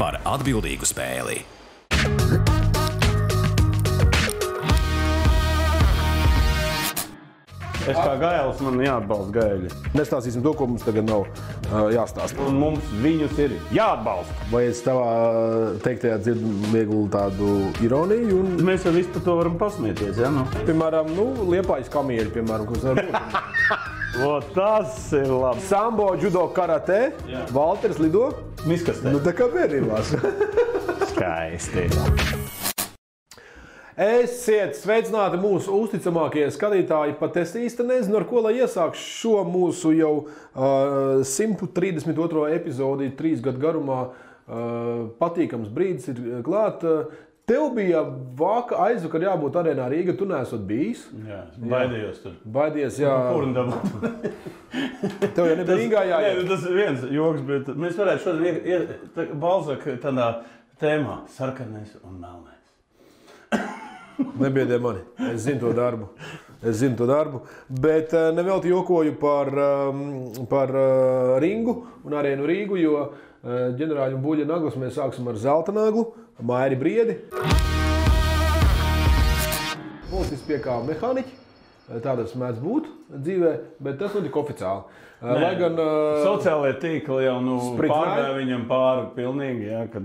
par atbildīgu spēli. Es kā gailis, man jāatbalsta gaili. Nestāstīsim to, ko mums tagad nav jāstāsta. Un mums viņus ir jāatbalsta. Vai es tavā teiktajā dzirdu vieglu tādu ironiju? Un, Mēs jau visu par to varam pasmieties, ja? Nu. piemēram, Liepājas kamieļi, piemēram, kas var būt. O, tas ir labi. Sambo, judo, karate, Valters lido. Miskastē. Nu, tā kā bērnībās. Skaisti. Esiet sveicināti mūsu uzticamākie skatītāji, pat es īsti nezinu, ar ko lai iesākšu šo mūsu jau 132. epizodi 3 gadu garumā. Patīkams brīdis ir klāt. Tev bija aizvakar jābūt arēnā Rīga, tu neesot bijis. Jā, baidījos tur. Baidies, jā. Kurndabot. Tev jau nebija Rīgā jāiet. Nē, tas ir viens joks, bet mēs varētu šodien Balzaka tādā tēmā - sarkanais un melnais. Nebiedē mani. Es zinu to darbu. Bet nevelti jokoju par ringu un arēnu Rīgu, jo ģenerāļu un buļļa naglas mēs sāksim ar zelta naglu, Mairi Briedi. Policists piekāva mehāniķi. Tā tas mēdz būt dzīvē, bet tas notika oficiāli. Lai gan sociālajie tīkli jau pārgāja viņam pāri pilnīgi, ja, kad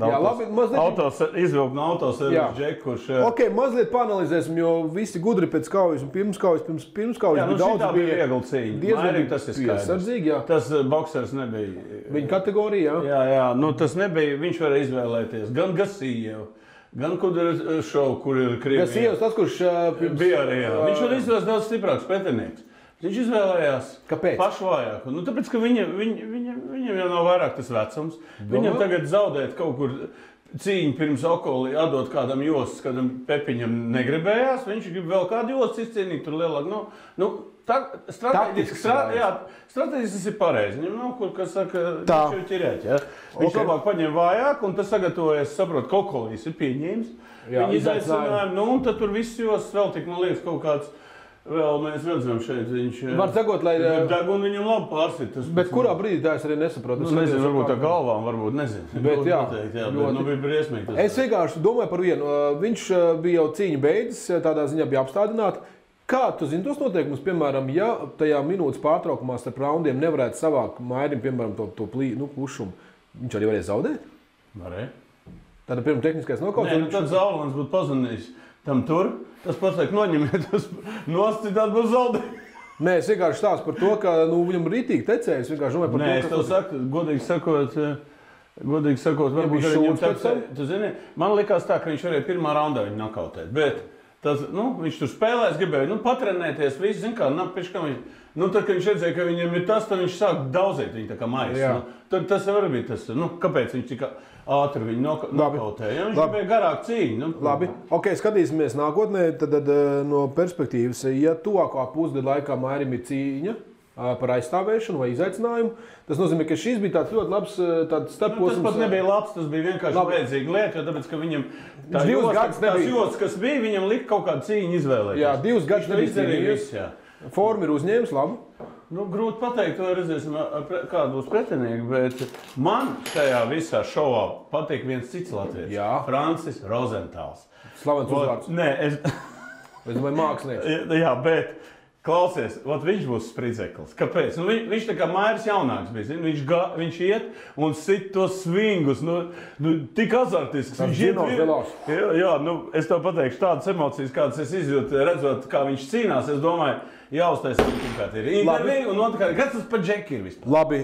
izvilkt no autoservis džeku, kurš... Ok, mazliet paanalizēsim, jo visi gudri pēc kaujas un pirms kaujas Jā, daudz bija viegli cīņa. Mairim tas ir skaidrs. Tas boksers nebija... Viņa kategorija, jā? Jā, tas nebija, viņš varēja izvēlēties gan Gasījevu, gan Kudras šovu, kur ir Krievija. Gasījevs tas, kurš... bija arī, jā. Viņš var izvēlēties daudz stiprāks pretinieks. Viņš izvēlējās pašvājāku. Tāpēc, ka viņam jau nav vairāk tas vecums. Viņam tagad zaudēt kaut kur cīņu pirms Okoli, atdot kādam jostas, kādam Pepiņam negribējās. Viņš grib vēl kādu jostas izcīnīt, tur lielāk. Strateģiski tas ir pareizi. Viņam nav kur, kas saka, viņš jau ķirēt. Ja? Viņš labāk paņem vājāk, un tas sagatavojas, saprot, ka Okolīs ir pieņēmis. Viņi izaicinājumi, un tad tur viss jostas vēl tik, man liekas, kaut kāds. Vēl mēs redzam šeit, viņš... Var sagot, lai... Degunu viņam labi pārsit. Bet kurā brīdī tā es arī nesaprotu? Nezinu, varbūt tā galvām, varbūt nezinu. Bet jā, bet bija briesmīgi. Es vienkārši domāju par vienu. Viņš bija jau cīņa beidzis, tādā ziņā bija apstādināti. Kā tu zini tos noteikumus, piemēram, ja tajā minūtes pārtraukumā starp raundiem nevarētu savākt Mairim, piemēram, to pušumu, viņš arī varēja zaudēt? Varēja. Tāda pirma tehniskais nokauts? Nē, tad Zaulans būtu pazvanījis tam tur. Tas pats liek noņemiet, tas nost, citādi būs zaudējumi. Nē, es vienkārši stāstu par to, ka viņam rītīgi tecēja. Es vienkārši domāju par to, ka... Nē, es tev saku, godīgi sakot, varbūt arī viņam tecēja. Tu zini, man likās tā, ka viņš varēja pirmā raundā viņu nokautēt, bet tas, viņš tur spēlēs, gribēja, patrenēties, visu, zin kā, tad, kad viņš redzēja, ka viņam ir tas, tad viņš sāk daudzēt viņu tā kā maisa. Tad tas var būt tas, kāpēc viņš tika... ātri viņu nokautēja. Viņš gribēja garāk cīņu. Labi. Ok, skatīsimies nākotnē. Tad no perspektīvas, ja tuvākā pusgada laikā Mairim ir cīņa par aizstāvēšanu vai izaicinājumu, tas nozīmē, ka šis bija tāds ļoti labs starposms. Tas pat nebija labs, tas bija vienkārši vajadzīga lieta, jo tāpēc, ka viņam tās jostas, kas bija, viņam lika kaut kādu cīņu izvēlēties. Jā, 2 gadus nebija cīnījies. Forma ir uzņēmis, labi. Grūti pateikt, to redzēsim, kādu būs pretinieki, bet man šajā visā šovā patīk viens cits latvietis. Francis Rozentāls. Slavens uzvārds. Nē, es domāju, mākslinieks. Jā, bet klausies, viņš būs spridzeklis. Kāpēc? Viņš tā kā Mairis jaunāks bija. Viņš iet un sit tos svingus, tik azartisks. Viņš iet. Jā, es tev pateikšu tādas emocijas, kādas es izjūtu, redzot, kā viņš cīnās. Es domāju, jāuztais pirmkārt ir intervija, un otrkārt, kas tas par džeki ir vispār? Labi,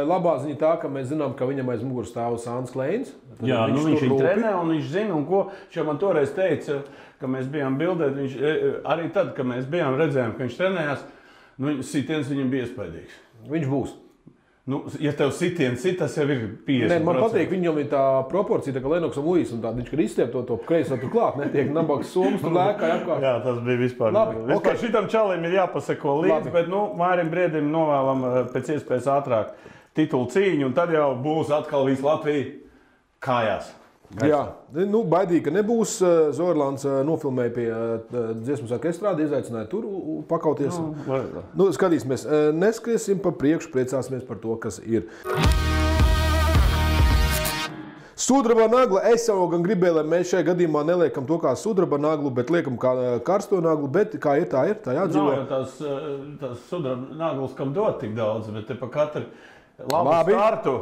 labā ziņa tā, ka mēs zinām, ka viņam aiz muguras stāv Sāns Kleins. Jā, viņš viņu trenē, un viņš zina, un ko. Viņš man toreiz teica, ka mēs bijām bildēt, arī tad, kad mēs bijām redzējām, ka viņš trenējās, sitiens viņam bija iespaidīgs. Viņš būs. Ja tev sitiens sit, tas jau ir 50%. Nē, man patīk, viņam ir tā proporcija, tā kā Lenoksam Luis, un viņš, kad izstiep to kreiso tur klāt, netiek nabaks somas, tur lēkā apkārt. Jā, tas bija vispār. Labi, okay. Šitam čalim ir jāpaseko līdzi, bet Mairim Briedim novēlam pēc iespējas ātrāk titulu cīņu, un tad jau būs atkal visu Latviju kājās. Jā, baidīgi, ka nebūs. Zorlāns nofilmēja pie dziesmu svētku estrādi, izaicināja tur pakauties. Skatīsimies, neskriesim pa priekšu, priecāsimies par to, kas ir. Sudraba nagla. Es jau gan gribēju, lai mēs šajā gadījumā neliekam to kā sudraba naglu, bet liekam kā karsto naglu. Bet kā ir, tā jādzīvo. Nav jau tās sudraba naglas, kam dot tik daudz, bet te pa katru labu startu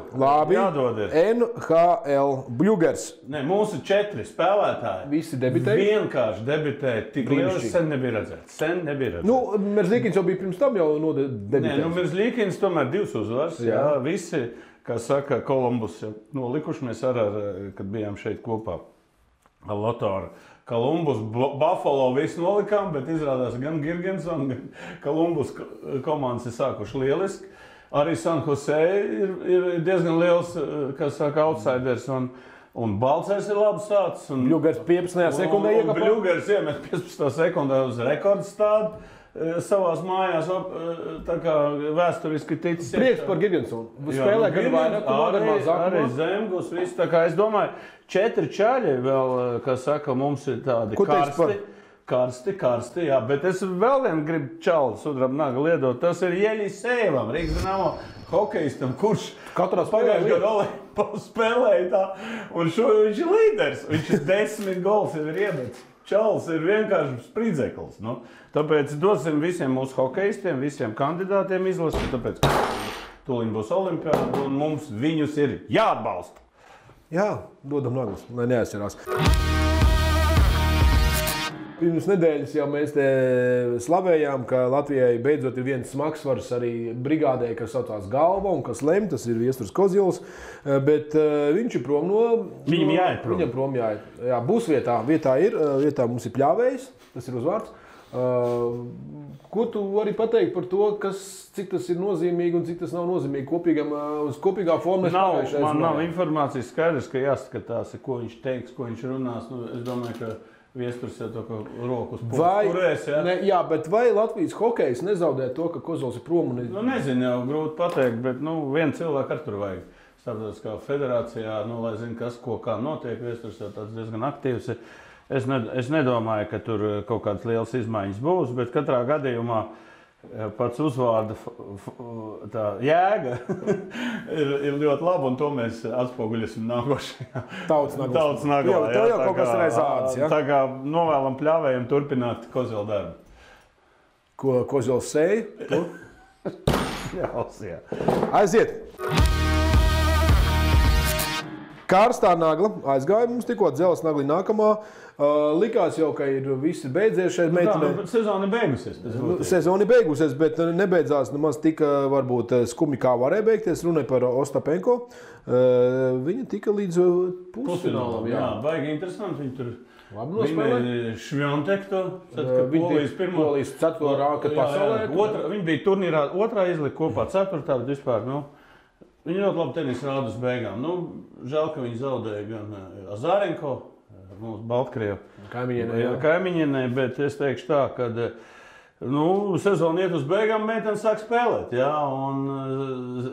jādod ir. NHL Bļugers. Ne, mūsu 4 spēlētāji. Visi debitēja? Vienkārši debitēja. Tik liels sen nebija redzēts. Nu, Merzlīkins jau bija pirms tam jau debitējis. Nē, nu Merzlīkins tomēr 2 uzvaras. Jā, visi. Kā saka, Kolumbus jau nolikuši, mēs kad bijām šeit kopā ar Lotāru. Kolumbus, Buffalo visu nolikām, bet izrādās gan Girgensson, gan Kolumbus komandas ir sākuši lieliski. Arī San Jose ir diezgan liels, kā saka, outsiders, un Balcers ir labi sācis. Bļugers 15. sekundē iekāpa. Bļugers iemet 15. sekundē uz rekordstādu. Savās mājās, tā kā vēsturiski ticis. Prieks par Girgensonu. Spēlē gan vairāk, gan mazāk. Arī Zemgus, viss. Tā kā es domāju, 4 čaļi vēl, kā saka, mums ir tādi karsti, jā. Bet es vēl vienu gribu čalu sudraba naglu iedot. Tas ir Jeļisejevs, Rīgas Dinamo hokejistam, kurš pagājušajā gadā Olimpiskajā spēlēja tā. Un viņš ir līderis. Viņš ir 10 gols jau ir iemetis. Čalis ir vienkārši spridzeklis. Nu, tāpēc dosim visiem mūsu hokejistiem, visiem kandidātiem izlasīt, tāpēc, ka tūlīt būs olimpiāda un mums viņus ir jāatbalsta. Jā, dodam naglas, lai neaizcerās. Pirms nedēļas jau mēs te slavējām, ka Latvijai beidzot ir viens smagsvars arī brigādē, kas saucās Galva un kas lem, tas ir Viesturs Kozils, bet viņš ir prom no... Viņam jāiet prom. Viņam prom jāiet. Jā, būs vietā. Vietā mums ir Pļāvējs, tas ir uzvārds. Ko tu vari pateikt par to, cik tas ir nozīmīgi un cik tas nav nozīmīgi uz kopīgā formā? Man nav informācijas skaidrs, ka jāskatās, ko viņš teiks, ko viņš runās. Nu, es domāju, ka Viesturs jau to, ka rokas turēs, jā? Jā, bet vai Latvijas hokejs nezaudē to, ka Kozils ir prom? Nu, nezinu, jau grūti pateikt, bet vienu cilvēku ar tur vajag. Starptautiskā federācijā, lai zinu, kas, kā notiek. Viesturs jau tāds diezgan aktīvs. Es nedomāju, ka tur kaut kādas lielas izmaiņas būs, bet katrā gadījumā pats uzvārda jēga ir ļoti laba, un to mēs atspoguļosim nākošajā Tautas naglā. Tev jau kaut kas ir aiz ādas, ja? Tā kā novēlam Pļāvējiem turpināt Kozila darbu. Ko Kozils sēja? Jā. Aiziet! Karstā nagla aizgāja mums tikko dzeles nagli nākamā. Likās jau, ka ir visi beidzies šeit meitenē. Sezona beigusies. Sezona beigusies, bet nebeidzās nemaz tik varbūt skumi, kā varēja beigties. Runāja par Ostapenko. Viņa tika līdz pusfinālam. Jā, baigi interesanti. Viņi tur labi nospēlēja. Švjontekto. Polijas 4. rāka pasaulē. Viņi bija turnīrā 2. izlika kopā 4. bet vispār, viņi ļoti labi tenisa rāda uz beigām. Žēl, ka viņi zaudēja gan Azarenko, mūsu Baltkrievu kaimiņienē, bet es teikšu tā, ka sezona iet uz beigām, meitene sāk spēlēt. Jā, un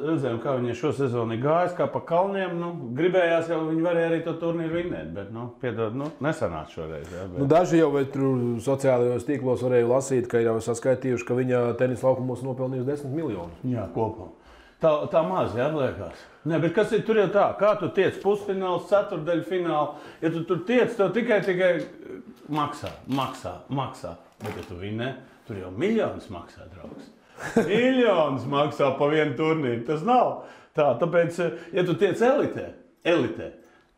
redzējām, kā viņai šo sezonu ir gājis, kā pa kalniem. Gribējās jau, viņi varēja arī to turnīru vinnēt, bet, piedod, nesanāca šoreiz. Jā, bet... Daži jau sociālajos tīklos varēja lasīt, ka ir jau saskaitījuši, ka viņa tenisa laukumos nopelnījusi 10 miljonus. Jā, kopā. Tā maz, jā, liekas. Nē, bet kas ir tur jau tā? Kā tu tiec pusfināls, ceturdaļfināls? Ja tu tur tiec, tev tikai maksā. Bet ja tu vinnē, tur jau miljonus maksā, draugs. Miljonus maksā pa vienu turnīru. Tas nav tā. Tāpēc, ja tu tiec elitē,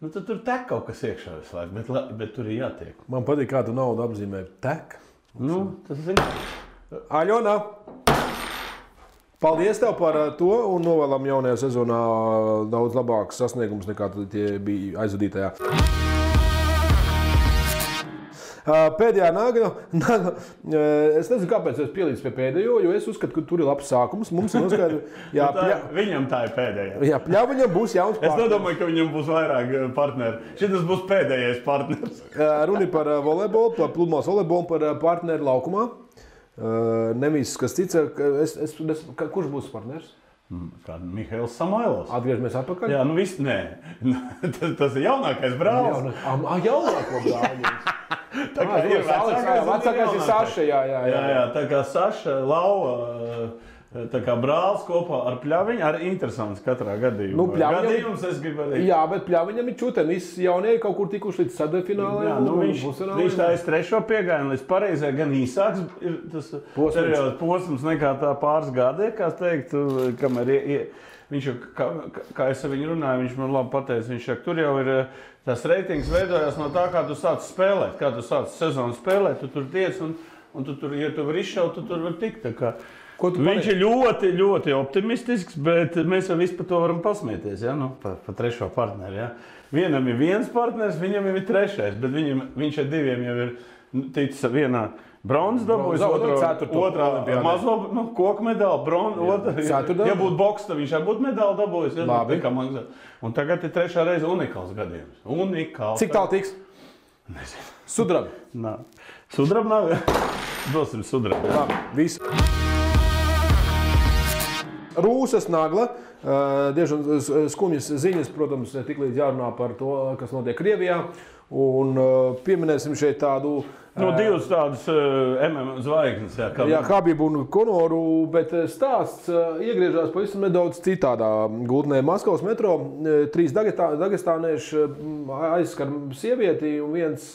tad tur tek kaut kas iekšā visu laiku, bet tur ir jātiek. Man patīk, kā tu naudu apzīmē. Tek? Tas zini. Aļona! Paldies tev par to un novēlam jaunajā sezonā daudz labākus sasniegumus nekā tie bija aizvadītajā. Pēdējā nagla, es nezinu, kāpēc es pielīdzu pie pēdējo, jo es uzskatu, ka tur ir labs sākums. Mums ir noskaidro, viņam tā ir pēdējā. Jā, Pļaviņam būs jauns partners. Es nedomāju, ka viņam būs vairāk partneri. Šitas būs pēdējais partners. Runa par volejbolu, par pludmales volejbolu, par partneri laukumā. Nevis kas cits, kurš būs partners? Kā Mihails Samoilovs. Atgriežamies atpakaļ? Jā, viss, nē. Tas ir jaunākais brālis. Jaunāko brāli. Tā kā ir vecākais ir Saša, jā. Tā kā Saša, Lauva, tā kā brālis kopā ar Pļaviņu, arī interesants katrā gadījumā. Nu, Gadījums es gribu arī. Jā, bet Pļaviņam ir čuten, visi jaunie kaut kur tikuši līdz sadefinālai. Jā, nu viņš tā trešo piegājienu līdz pareizai, gan īsāks ir tas posms nekā tā pāris gadi, kā teikt, kamēr viņš jau, kā es ar viņu runāju, viņš man labi pateica, viņš saka, tur jau ir tas reitings veidojās no tā, kā tu sāc spēlēt, kā tu sāc sezonu spēlēt, tu tur tiec un tu tur, ja tu vari izšaut, tu tur vari tikt. Tā kā viņš ir ļoti, ļoti optimistisks, bet mēs jau visu par to varam pasmieties, ja? Nu, par trešo partneri. Ja? Vienam ir viens partners, viņam jau ir trešais, bet viņš ar diviem jau ir ticis vienā bronzas dabūjis, otrā mazo koku medaļu, bronzas. Ja būtu boks, tad viņš arī būtu medaļu dabūjis. Ja? Labi. Un tagad ir trešā reize unikāls gadījums. Unikāls. Cik tālu tiks? Nezinu. Sudrabi? Nā. Sudrabi nav? Dosim sudrabi. Labi, visu. Rūsas Nagla, diezgan skumjas ziņas, protams, tiklīdz jārunā par to, kas notiek Krievijā. Un pieminēsim šeit tādu... Divas tādas MMA zvaigznes. Jā, Habibu un Konoru, bet stāsts iegriežās pavisam nedaudz citādā gultnē. Maskavas metro 3 dagestānieši aizskar sievieti un viens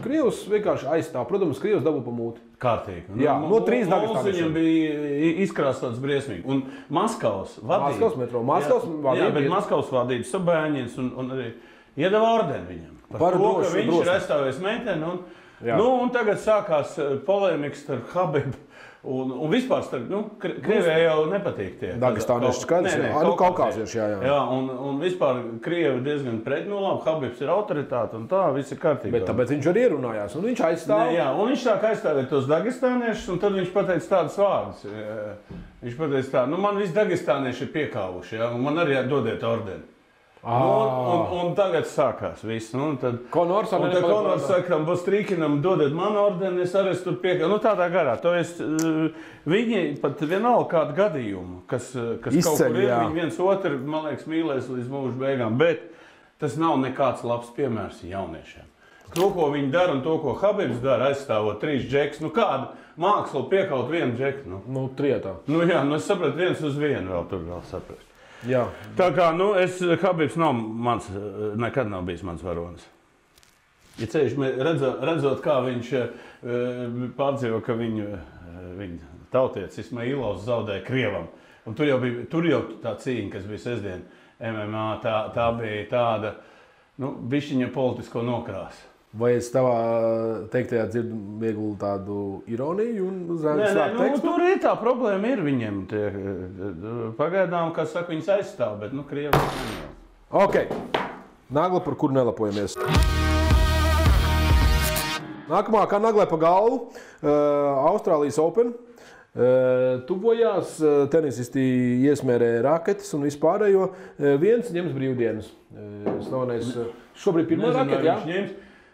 krievs vienkārši aizstāv. Protams, krievs dabū pa mūti. Kārtīgi. Jā, no 3 dagestānieši. Viņam bija izkrāsots briesmīgi. Un Maskavas vadība. Maskavas metro. Maskavas vadība. Jā, bet Maskavas vadība Sabēņins un arī iedeva ordeni viņam. Par to, ka viņš ir aizstāvējis meiteni. Un tagad sākās polēmikas starp Habibu un vispār starp, Krievijai jau nepatīk tie. Dagestānieši skaidrs, kaukāzieši, jā. Jā, un vispār Krievi diezgan pret, labi, Habibs ir autoritāte un tā, viss ir kārtībā. Bet tāpēc viņš arī ierunājās, un viņš aizstāv. Jā, un viņš sāk aizstāvēt tos dagestāniešus, un tad viņš pateica tādas vārdas. Viņš pateica tā, man visi dagestānieši ir piekāvuši, un man arī dodiet ordeni. Un tagad sākās viss. Konors saka, Bostrīkinam dodiet man ordeni, es arī tur piekāvu. Tādā garā. Viņi pat vienalga kādu gadījumu, kas izceļ, kaut kur ir, viņi viens otru, man liekas, mīlēs līdz mūža beigām. Bet tas nav nekāds labs piemērs jauniešiem. To, ko viņi dara un to, ko Habibs dara, aizstāvot 3 džekus. Kāda māksla piekaut vienu džeku? Trietā. Es sapratu, viens uz vienu vēl tur saprast. Jā. Tā kā, Habibs nekad nav bijis mans varonis. Ja ceļš, redzot, kā viņš pārdzīvo, ka viņa tautietis Ismailovs zaudēja Krievam. Un tur jau tā cīņa, kas bija sestdien MMA, tā bija tāda, bišķiņa politisko nokrāsu. Vai es tavā teiktajā dzirdu vieglu tādu ironiju un slēpt tekstu? Tur ir tā problēma ir viņiem. Pagaidām, kā saka, viņas aizstāv, bet Krievi neņem. Ok. Nagla, par kuru nelapojamies. Nākamā, kā naglai pa galvu, Austrālijas Open. Tuvojās, tenisisti iesmērēja raketes un vispārējo. Viens ņems brīvdienas. Slavenais šobrīd pirmā raketa, jā?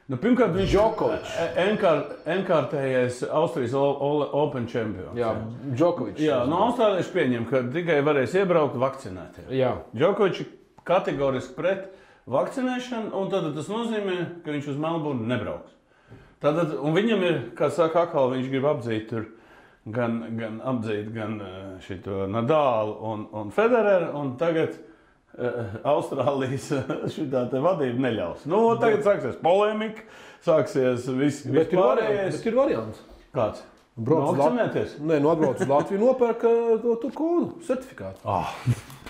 Pirmkārt, viņš ir enkārtējais Austrijas Open čempions. Jā, Džokovičs. Jā, austrālieši pieņem, ka tikai varēs iebraukt vakcinētie. Jā. Džokovičs kategoriski pret vakcinēšanu, un tad tas nozīmē, ka viņš uz Melburnu nebrauks. Un viņam ir, kā saka Akal, viņš grib apdzīt tur gan šito Nadalu un Federeru, un tagad Austrālijas šitā te vadība neļaus. Tagad sāksies polemika, sāksies viss pārējais. Bet ir variants. Kāds? Vakcinēties? Nē, atbrauc uz Latviju, nopērk to kodu, certifikātu.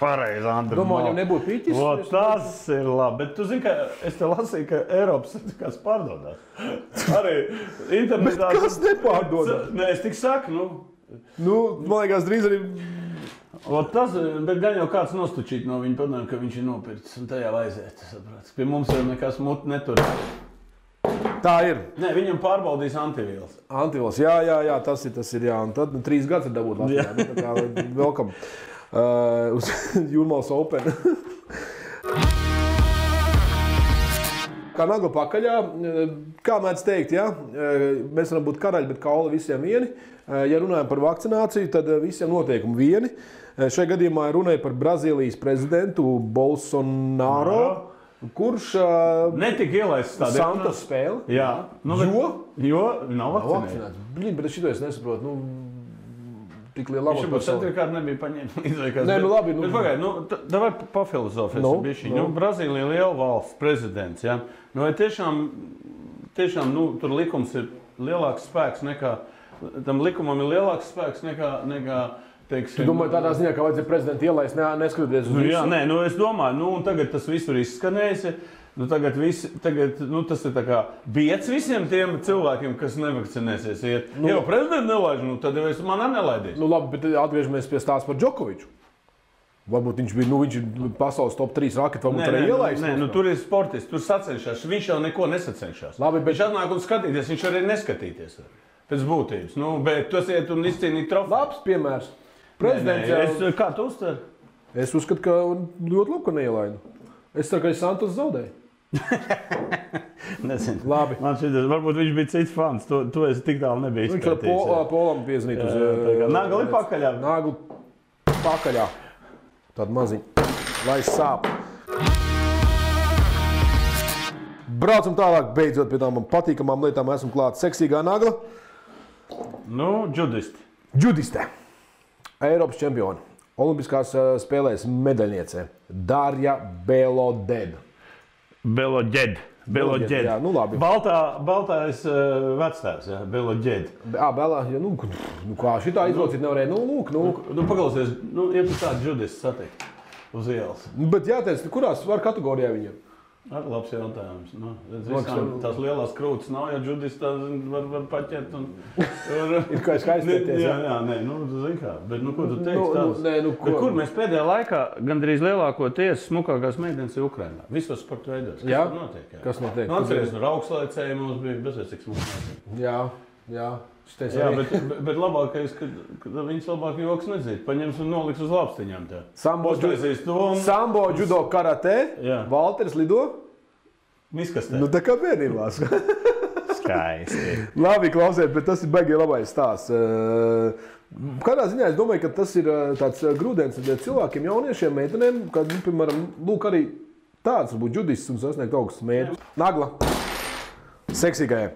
Pareizi, Andri. Domāju, jau nebūtu pīķis. Tas ir labi, bet tu zini, ka es te lasīju, ka Eiropas certifikāts pārdodās. Arī internetā. Bet kas nepārdodās? Nē, es tik saku, man liekas, drīz arī... Bet gan jau kāds nostučīt no viņa padomā, ka viņš ir nopircis un tajā aiziet. Pie mums jau nekas muti netur. Tā ir. Nē, viņam pārbaudīs antivīls. Antivīls, jā, tas ir, jā. Un tad 3 gadus ir dabūt Latvijā. Tā kā welcome uz Jūrmālas Open. Kā nagla pakaļā, kā mēdz teikt, jā, mēs varam būt karaļi, bet kauli visiem vieni. Ja runājam par vakcināciju, tad visiem noteikumi vieni. Šajā gadījumā runāja par Brazīlijas prezidentu Bolsonaro, kurš netika ielaists tādā Santos spēli. Jā. Jo nav vakcinēts. Bet šito es nesaprotu. tik liela Viņš jau centrkārt nebija paņēmis. Nē, nu labi. Bet pagaid, davai pafilozofēsim bišķi. Brazīlija liela valsts prezidents, ja? Vai tiešām, tur likums ir lielāks spēks nekā, tam likumam ir lielāks spēks nekā teiksim... Tu domāji tādā ziņā, ka vajadzēja prezidentu ielaist, neskatoties uz visu? Jā, nē, es domāju, un tagad tas visur izskanējis. Tagad tas ir tā kā biets visiem tiem cilvēkiem, kas nevakcinēsies. Ja prezidents nelaiž, tad jau es manā nelaidīšu. Labi, bet atgriežamies pie stāsta par Džokoviču. Varbūt viņš ir pasaules top 3 raketi, varbūt arī ielaist. Nē, tur ir sportists, tur sacenšās. Viņš jau neko nesacenšās. Labi, bet... Viņš atnāk un skatīties, viņš arī neskatīties pēc būtības. Bet tas iet un izcīnīt trofeju. Labs piemērs. Kā tu uztver? Es uzskatu, ka ļoti labi, ka neielaidu. Es ceru, ka Santos zaudēja. Nezinu. Labi. Man šķiet, varbūt viņš bija cits fans. To es tik tālu nebiju izpētījis. Viņš ar Polam piezinīt uz... Nagli pakaļā. Nagli pakaļā. Tāda maziņa. Lai sāp. Braucam tālāk, beidzot pie tām patīkamām lietām. Esmu klāt seksīgā nagla. Džudiste. Eiropas čempioni. Olimpiskās spēlēs medaļniece Darja Beloded. Beloded. Jā, nu labi. Baltais vectēvs, jā, Beloded. Kā šitā izlocīt nevarēja? Paklausies, ir tāda džudiste satikt uz ielas. Bet jāteic, kurās var kategorijā viņam? Labs jautājums. Tās lielās krūtis nav, ja džudistā var paķert. Ir kā skaistieties. Jā, zin kā. Bet ko tu teiksi? Kur mēs pēdējā laikā gandrīz lielākoties smukākās meitenes ir Ukrainā? Visos sporta veidos. Kas tur notiek? Kas notiek? Atceries, augstlaicēji mums bija bezvēs cik smukāki. Jā. Bet labākais, ka viņas labāk joks nedzīt. Paņems un noliks uz lāpstiņām tā. Sambo, judo, karate, Valters lido. Miskastē. Tā kā bērnībās. Skaisti. Labi, klausiet, bet tas ir baigi labais stāsts. Kādā ziņā es domāju, ka tas ir tāds grūdienis cilvēkiem, jauniešiem, meitenēm, kad, piemēram, lūk arī tāds varbūt judists un sasniegt augstus mērķus. Nagla. Seksīgajai.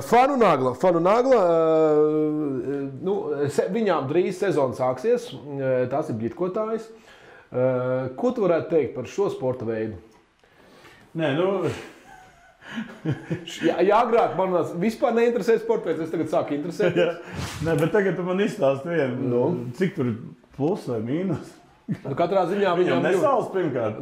Fanu Nagla. Viņām drīz sezona sāksies. Tās ir bļitkotājas. Ko tu varētu teikt par šo sporta veidu? Agrāk man vispār neinteresēja sporta veids, es tagad sāku interesēties. Bet tagad tu man izstāsti vienu. Cik tur ir plus vai mīnus? Katrā ziņā viņam nesals pirmkārt.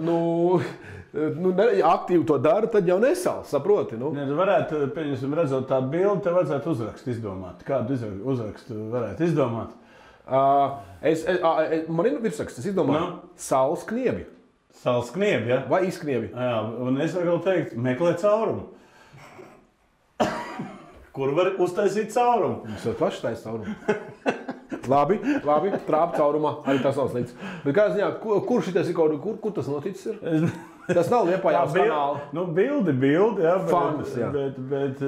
Aktīvi to dara, tad jau nesals, saproti. Varētu, pieņemsim, redzot tādu bildi, tev vajadzētu uzrakstu izdomāt. Kādu uzrakstu varētu izdomāt? Man ir virsraksts, es izdomāju. Saules kniebi. Saules kniebi, ja? Vai izkniebi? Jā, un es varu teikt, meklē caurumu. Kur var uztaisīt caurumu? Mums jau paši taisa caurumu. Labi, trāpa caurumā, arī tas nav slikts. Bet kā ziņā, kur šitais ir kaut kur tas noticis ir? Tas nav Liepājās kanāli. Bildi, jā. Fantas, jā. Bet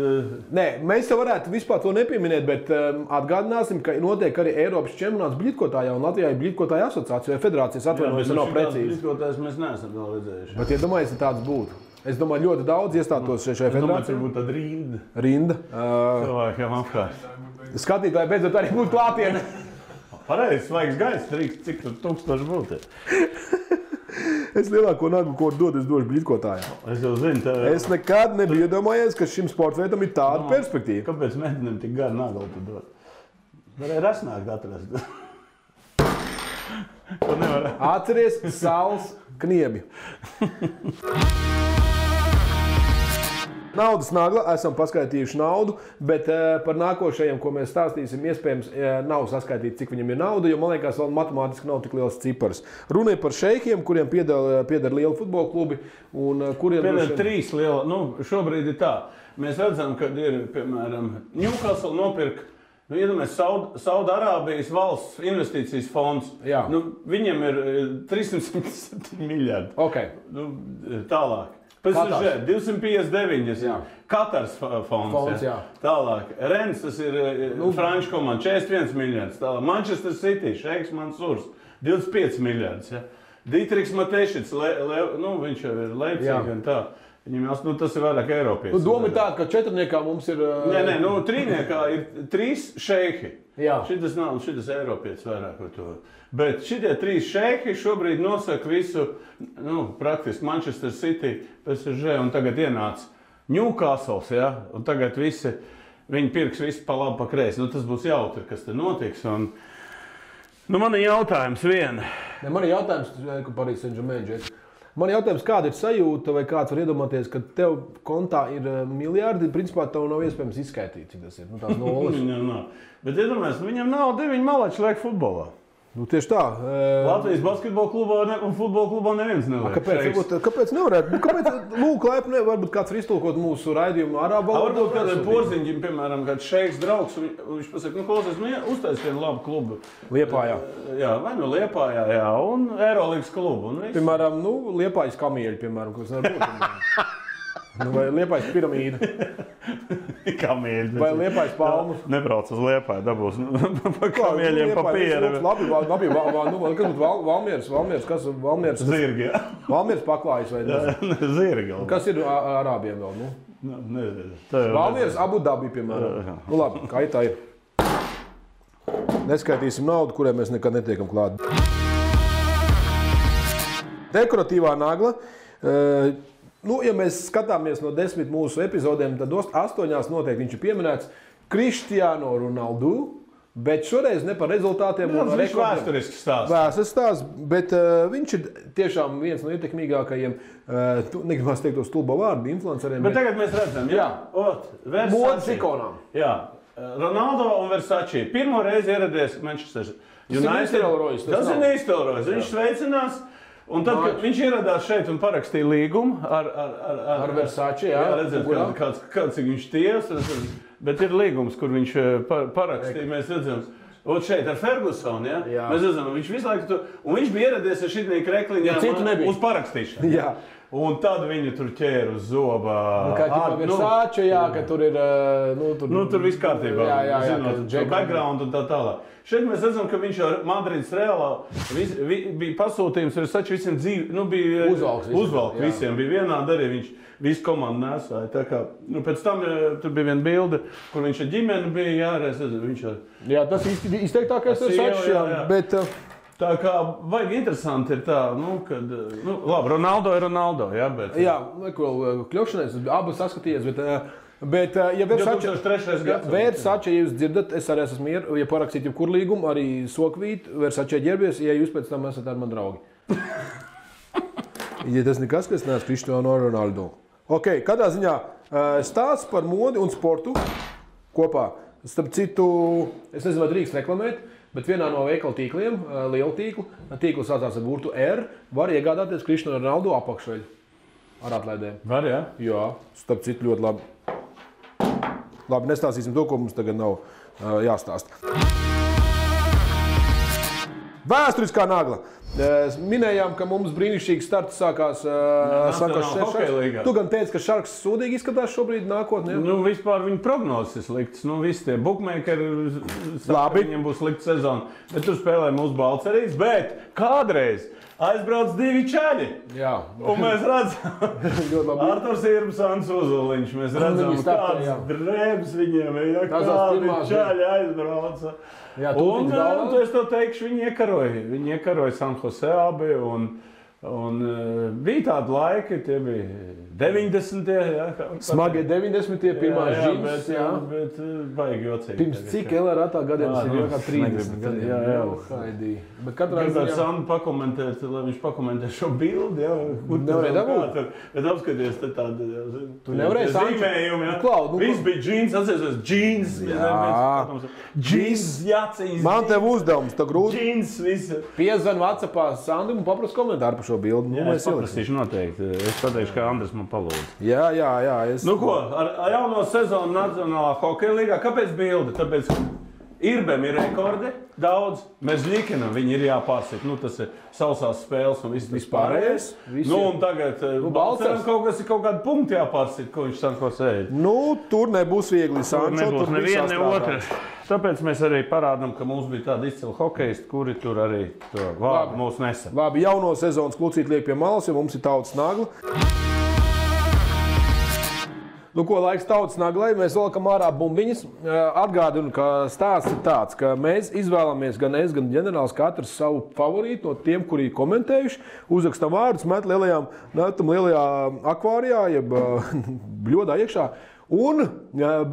Nē, mēs jau varētu vispār to nepieminēt, bet atgādināsim, ka notiek arī Eiropas čempionāts bļitkotājā, un Latvijā ir bļitkotāja asociācija vai federācijas atvainojas, nav precīzi. Bļitkotājs mēs neesam vēl redzējuši. Bet iedomājies, ja tāds būtu. Es domāju, ļoti daudz iestātos šajā federācijā. Es domāju, ka būtu tāda rinda. Cilvēkiem apkārt. Skatītāji beidzot arī būtu klātienē. Pareizi, svaigs gaiss, cik tur 1000 būtu. Es lielāko naglu, ko dodu, es došu bļitkotājām. Es jau zinu. Es nekad nebiju iedomājies, ka šim sporta veidam ir tāda perspektīva. Kāpēc meitenēm tik garu naglu tu dod? Varēja rasnākt atrast. To nevar. Atceries saules kniebi. Naudas nagla, esam paskaitījuši naudu, bet par nākošajiem, ko mēs stāstīsim, iespējams nav saskaitīts, cik viņam ir nauda, jo man liekas, vēl matemātiski nav tik liels cipars. Runa ir par šeikiem, kuriem pieder liela futbola klubi. Pieder 3 liela. Šobrīd ir tā. Mēs redzam, ka ir, piemēram, Newcastle nopirka. Iedomājies, Saudarābijas valsts investīcijas fonds. Viņiem ir 307 miljardi. Okay. Tālāk. PSG 259, Katars fonds, tālāk. Rennes, tas ir franču komanda, 41 miljardus, tālāk. Manchester City, Šeiks Mansurs, 25 miljardus. Dietrichs Matešits, viņš jau ir Leipzig un tā. Viņam tas ir vairāk Eiropieši. Doma ir tāda, ka 4 mums ir... Nē, 3 ir 3 šeihi. Jā. Šitas nav, šitas Eiropietis vairāk par to. Bet šitie 3 šeihi šobrīd nosaka visu, praktiski Manchester City, PSG un tagad ienāca Newcastles, ja? Un tagad viņi pirks visu pa labi, pa kreisi. Tas būs jautri, kas te notiks. Un, man ir jautājums viena. Man ir jautājums, ka Paris Saint-Germain. Man ir jautājums, kāda ir sajūta, vai kāds var iedomāties, ka tev kontā ir miljardi, principā tev nav iespējams izskaitīt, cik tas ir. Tās nulles. Viņam nav. Bet iedomājies, viņam nav 9 malači liek futbolā. Tieši tā. Latvijas basketbola klubā un futbola klubā neviens neliek. Kāpēc nevarētu? Varbūt kāds var iztulkot mūsu raidījumu arābu valodā? Varbūt kādam porziņģim, piemēram, kāds šeiks draugs, viņš pasaka, klausies, uztais vienu labu klubu. Liepājā. Jā, vai Liepājā, jā, un Eirolīgas klubu. Piemēram, Liepājas kamieļi, piemēram, kas nevar būt. Vai Liepājas piramīda. Kamieļi. Vai Liepājas palmas. Nebrauc uz Liepāju, dabūs pa kamieļiem papīra. Labi, kas būtu Valmieras, kas Valmieras? Zirgi, jā. Valmieras paklājas vai ne? Zirgi. Kas ir arābiem vēl, Nezinu. Valmieras Abu Dabi, piemēram. Labi, kā tā ir. Neskaitīsim naudu, kurai mēs nekad netiekam klāt. Dekoratīvā nagla. Ja mēs skatāmies no 10 mūsu epizodēm, tad 8 noteikti viņš ir pieminēts Cristiano Ronaldo, bet šoreiz ne par rezultātiem. Viņš ir vēsturisks stāsts. Vēsturisks stāsts, bet viņš ir tiešām viens no ietekmīgākajiem, negribas teikt to stulbo vārdu, influenceriem. Bet tagad mēs redzam, modes ikonām. Jā, Ronaldo un Versace. Pirmo reizi ieradies Manchester United. Tas ir neiztelrojis. Viņš sveicinās. Un tad, kad viņš ieradās šeit un parakstīja līgumu ar Versace, kāds viņš ties, bet ir līgums, kur viņš parakstīja, mēs redzam, šeit ar Fergusonu, ja? Mēs redzam, viņš visu laiku tur, un viņš bija ieradies ar šitnī krekliņām uz parakstīšanu. Jā. Un tad viņi tur ķēra uz zobā. Kā Versace, ka tur ir... tur viss kārtībā, zinot, background un tā tālāk. Šeit mēs redzam, ka viņš ar Madrides Realā bija pasūtījums Versace visiem dzīvi, bija uzvalk visiem, bija vienādi arī viņš visu komandu nesāja. Tā kā, pēc tam tur bija viena bilde, kur viņš ar ģimeni bija, Jā, tas izteiktākais Versace, bet... Tā kā vajag interesanti ir tā, kad, labi, Ronaldo ir Ronaldo, jā, bet... Jā, kļūšanais, abas saskatījies, bet ja Versace, ja jūs dzirdat, es arī esmu mieru, ja parakstīt jebkur līgumu, arī sokvīt, Versace ģerbies, ja jūs pēc tam esat ar mani draugi. Ja tas nekas, kas neesmu Cristiano Ronaldo. Ok, kādā ziņā stāsts par modi un sportu kopā. Starp citu, es nezinu, vai drīkst reklamēt, bet vienā no veikala tīkliem, liela tīkla sācās ar burtu R, var iegādāties Cristiano Ronaldo apakšveļu ar atlaidēm. Var, jā? Jā, starp citu ļoti labi. Labi, nestāstīsim to, ko mums tagad nav jāstāst. Vēsturiskā nagla. Minējām, ka mums brīnišķīgs starts sākās Šarks. Tu gan teici, ka Šarks sūdīgi izskatās šobrīd nākotnē? Vispār viņa prognozes ir sliktas. Visi tie bookmakeri viņam būs slikta sezona. Bet tur spēlē mūsu balcerīs. Bet kādreiz aizbrauc 2 čaļi. Jā. Un mēs redzam, Arturs Irbsons Uzuliņš. Mēs redzam, kāds drēbs viņiem ir. Kādi čaļi aizbrauca. Jā, un es to teikšu, viņi iekaroja San Jose abi, un bija tādi laiki, tie bija 90. Smagie 90. pirmās žīmes. Bet vajag jocīgi. Pirms cik LRA gadiem tas ir jau kā 30 gadiem. Jā. Bet katrā ziņā Sandu pakomentēt, lai viņš pakomentē šo bildi, kur nevarēja dabūt. Bet apskaties te tādi, tu nevarēji zīmējumi, Viss bija džīns, atceries, džīns. Džīns, jācīs. Man tev uzdevums, tā grūti. Džīns, viss. Piezvan WhatsAppā Sandu un paprast komentāru par šo bildi. Jā, es paprastīšu noteikti. Es pateikšu, ka Andris man palūdz. Jā. Ko, ar jauno sezonu Nacionālā hokeja līgā, kāpēc bildi? Tāpēc Irbem ir rekordi daudz, Mežļikinam viņi ir jāpārsit. Tas ir sausās spēles un viss pārējais. Un tagad Balceram kaut kādi punkti jāpārsit, ko viņš Sanko sēd. Tur nebūs viegli. Tur nebūs neviena, ne otra. Tāpēc mēs arī parādām, ka mums bija tādi izcili hokeisti, kuri tur arī to vārdu mūs nesa. Labi, jauno sezonas klucīt liek pie malas, jo mums ir tautas nagla. Nu, ko laiks tautas naglai, mēs valkam ārā bumbiņas. Atgādinu, ka stāsts ir tāds, ka mēs izvēlamies gan es, gan ģenerālis katrs savu favorītu no tiem, kuri kommentējuši. Uzrakstam vārdus, metam lielajā akvārijā, jeb bļodā iekšā. Un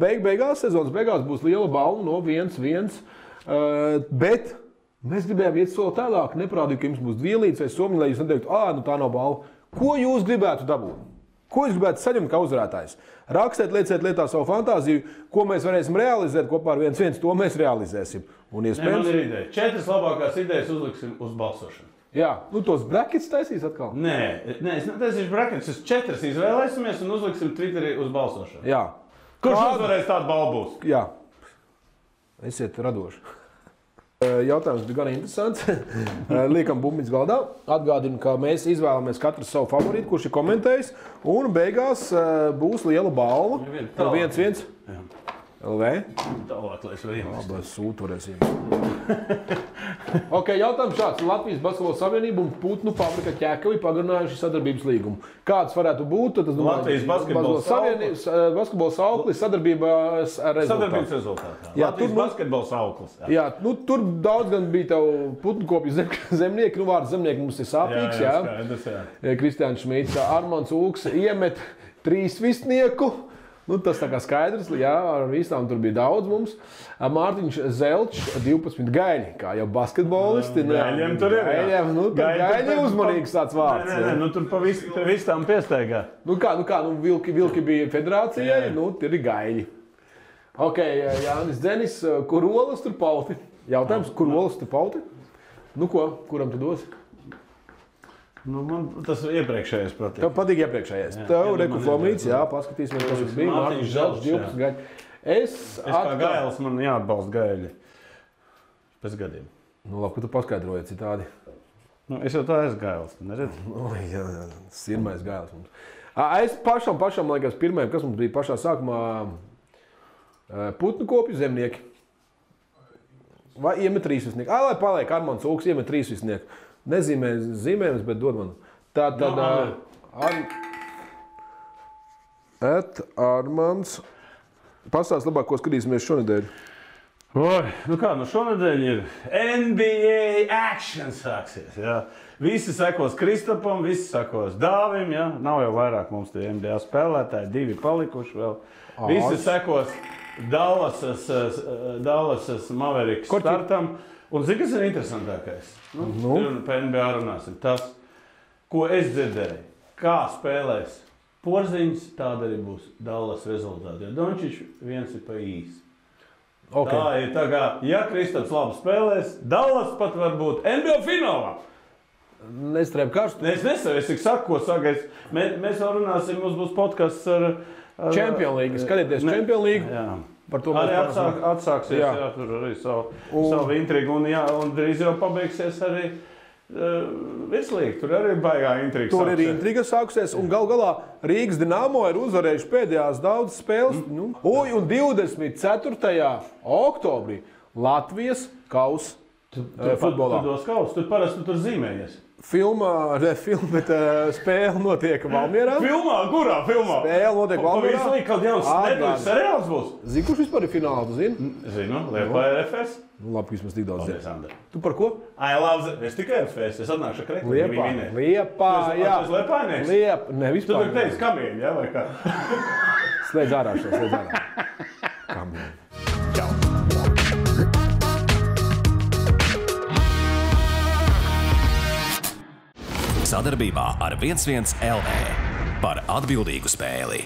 beigās, sezonas beigās būs liela balva no 1-1. Bet mēs gribējām iet soli tālāk, neparādīt, ka jums būs dvielīts vai somiņi, lai jūs neteiktu, nu tā nav balva. Ko jūs gribētu dabūt? Ko jūs gribētu saņemt kā uzvarētājs? Rakstiet, lieciet lietā savu fantāziju, ko mēs varēsim realizēt kopā ar 1-1, to mēs realizēsim. Un iespējams... Man ir ideja. 4 labākās idejas uzliksim uz balsošanu. Jā, tos brackets taisīs atkal? Nē, es netaisīšu brackets. Es 4 izvēlēsimies un uzliksim Twitterī uz balsošanu. Jā. Kurš uzvarēs tādu balvu būs? Jā. Esiet radoši. Jautājums bija gan interesants. Liekam bumbiņas galdā. Atgādinu, ka mēs izvēlamies katru savu favorītu, kurš ir komentējis. Un beigās būs liela balva. 1-1. LV. Tālāk, lai es varu iemest. Labi, sūtu varēsim. Ok, jautājums šāds. Latvijas Basketbola Savienība un Putnu fabrika Ķēkavi pagarinājuši sadarbības līgumu. Kāds varētu būt? Tad, Latvijas Basketbola sauklis sadarbības rezultātā. Jā, Latvijas Basketbola sauklis. Jā, tur daudz gan bija tev Putnu kopju zemnieki. Vārds zemnieki mums ir sāpīgs. Jā. Kristiāns Šmīts, Armands Ulks iemet 3 visnieku. Tas tā kā skaidrs, jā, ar visām tur bija daudz mums. Mārtiņš Zelčs, 12 gaļi, kā jau basketbolisti. Gaļiem tur ir, jā. Gaļi uzmanīgs tāds vārds. Nē, tur pa visām piesteigā. Vilki bija federācijai, tur ir gaļi. Ok, Jānis Dzenis, kur olas tur pauti? Jautājums, kur olas tur pauti? Kuram tu dosi? Man tas iepriekšējais patīk. Tev patīk iepriekšējais. Tev Reku Flomīts, jā, paskatīsimies, kas tas bija. Mārtiņš Zelčs, 12 gaļi. Es kā gailis, man jāatbalsta gaļi. Pēc gadiem. Labi, ka tu paskaidroji citādi. Es jau tā esmu gailis, neredzi? Jā, sirmais gailis mums. Es pašam, liekas, pirmajam, kas mums bija pašā sākumā, Putnu kopju zemnieki. Vai iemet 3 visnieki? Lai paliek Armands Ulks, iemet 3 visnieki. Nezīmē zīmējums, bet dod man. Tad Armands. Pastāst labāk, ko skatīsimies šonedēļ. Šonedēļ ir NBA action sāksies. Jā. Visi sekos Kristapam, visi sekos Dāvim. Jā. Nav jau vairāk mums tie NBA spēlētāji, 2 palikuši vēl. Visi sekos Dallasas Mavericks startam. Un zini, kas ir interesantākais? Par NBA runāsim. Tas, ko es dzirdēju, kā spēlēs Porziņš, tāda arī būs Dallas rezultāti. Jo Dončičs viens ir pa īsi. Okay. Tā ir tā kā, ja Kristaps labi spēlēs, Dallas pat var būt NBA finālā. Nestrēm karstu. Es nesavu, es tik saku, ko sagaidu. Mēs vēl runāsim, mums būs podcasts ar Champions League. Skatieties Champions League. Jā. Arī atsāksies, jā, tur arī savu intrigu, un drīz jau pabeigsies arī virslīga. Tur arī baigā intriga sāksies. Tur ir intriga sāksies, un gal galā Rīgas Dinamo ir uzvarējuši pēdējās daudz spēles. Un 24. oktobrī Latvijas kausa futbolā. Tu dos kausu, tu parasti tur zīmējies. Bet spēle notiek Valmierā. Filmā? Kurā filmā? Spēle notiek Valmierā. Pavisam kaut jauns nedēļas seriāls būs. Zini, kurš vispār ir finālā, tu zini? Zinu, Liepāja FS. Labi, vismaz tik daudz zini. Tu par ko? Es tikai FS, es atnākšu Kreku. Liepāja. Tu esi Liepājnieks? Ne, vispār. Tu tur teici kamieņi, jā, vai kā? Slēdz ārā šo, slēdz ārā. Kamieņi. Sadarbībā ar 1-1 LV par atbildīgu spēli.